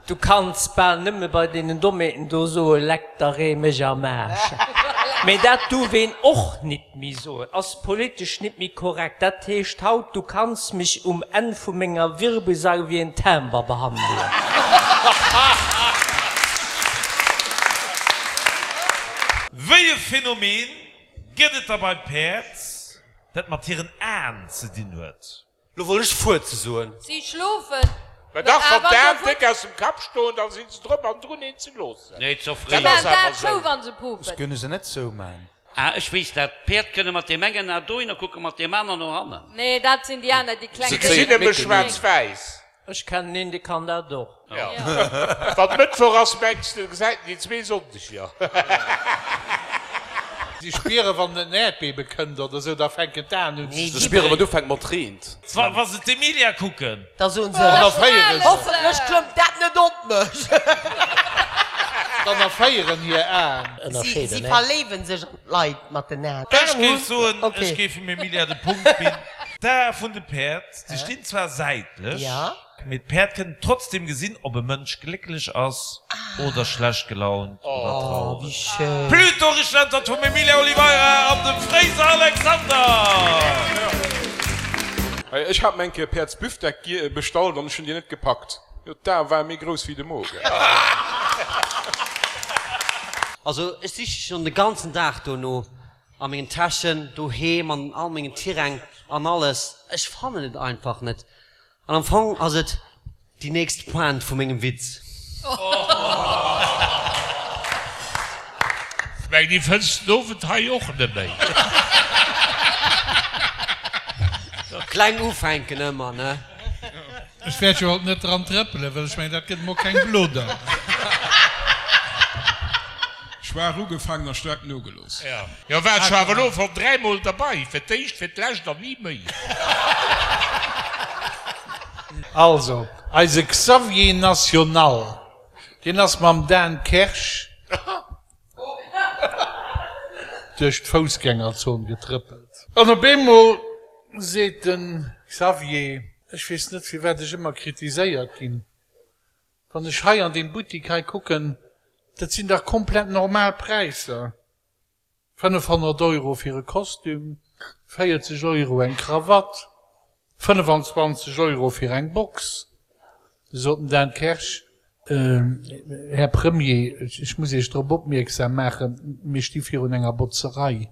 Du kanns bal nëmme bei deenen Dommheeten do soe Leck der Ree mech am Aarsch. Mee dat duerf een och nit méi soen, ass politesch nit méi korrekt. Dat heescht haut, du kanns mech um Enn vu menger Wirbelsail wéi en Timber behandelen. Wéi e Phänomen gëtt et da bei Päerd, dat mat hiren Aen ze dinn huet? Lo wollt ech Fuerze soen. Si schlofen. Mä dach, wann d'Aen déck aus dem Kapp stoen, da si se drop an drun, een ze loossen. Nee, ze fréi. Dat ass awer sou. Ech kënne se net zouman. Ah, ech weess dat. D'Päerd kënne mat deem engen A dohinner kucken, mat deem aner no hannen. Nee, dat sinn déi aner, déi kleng. Se gesinn nëmme schwaarz-wäiss. Ech kennen een, dee kann dat och. Jo. Wann Mëttwoch ass, mengs de, gesäit en déi zwee Sonndeger. Si spieren, wann en Äerdbebe kënnt oder sou, da fänken d'Aen un ze Se spieren, wann et ufänkt mat reent. Wa se d'Emilia kucken. Da soen se, Dann erféiere se. Hoffentlech klëmmt dat net op mech. Dann erféieren hir Aen. Si si verléiwen sech an d'Leit mat den Aen. Ech géif soen, ech géif dem Emilia de Punkt ginn. D'Ae vun de Päerd, se stinn zwar säitlech, mee d'Päerd kënnen trotzdem gesinn, ob e Mënsch glécklech ass oder schlecht gelaunt oder traureg. Pluto Richteg vum Emilia Oliveira an dem Fréiser Alexander! Ech hat mer eng Kéier Päerdsbüftek bestallt an ech hunn déi net gepackt. Jo, d'Ae ware méi grouss wéi de Mogen. Also ech siche schon de ganzen Dag dono. A mengen Täschen, doheem, an all mengen Tiräng an alles. Ech fannen et einfach net. An am Fong ass et déi nächst Pointe vu mengem Witz. Ech mengen, déi fënns den Owend hei och net méi. Kleng ufänken ëmmer, ne? Ech wäert jo haut net dran trëppelen, well ech mengen, dat gëtt emol keng Blodder. Schwaach ugefaangen a staark nogelooss. Jo, war ech awer elo schon dräimol derbei, fir d'éischt, fir d'lescht an ni méi. Also, eise Xavier National, deen ass mam Dan Kersch duerch d'Foussgängerzon getrëppelt. An op eemol seet de Xavier, Ech weess net, firwat ech ëmmer kritiséiert ginn. Wann ech hei an deem Buttik hei kucken, dat sinn dach komplett normal Präisser, 500 Euro fir e Kostüm, 40 Euro eng Krawatt, 25 Euro fir eng Box. Du sot den Dan Kersch, Här Premier, ech muss Iech drop opmierksam maachen, mir sti virun enger Botzerei.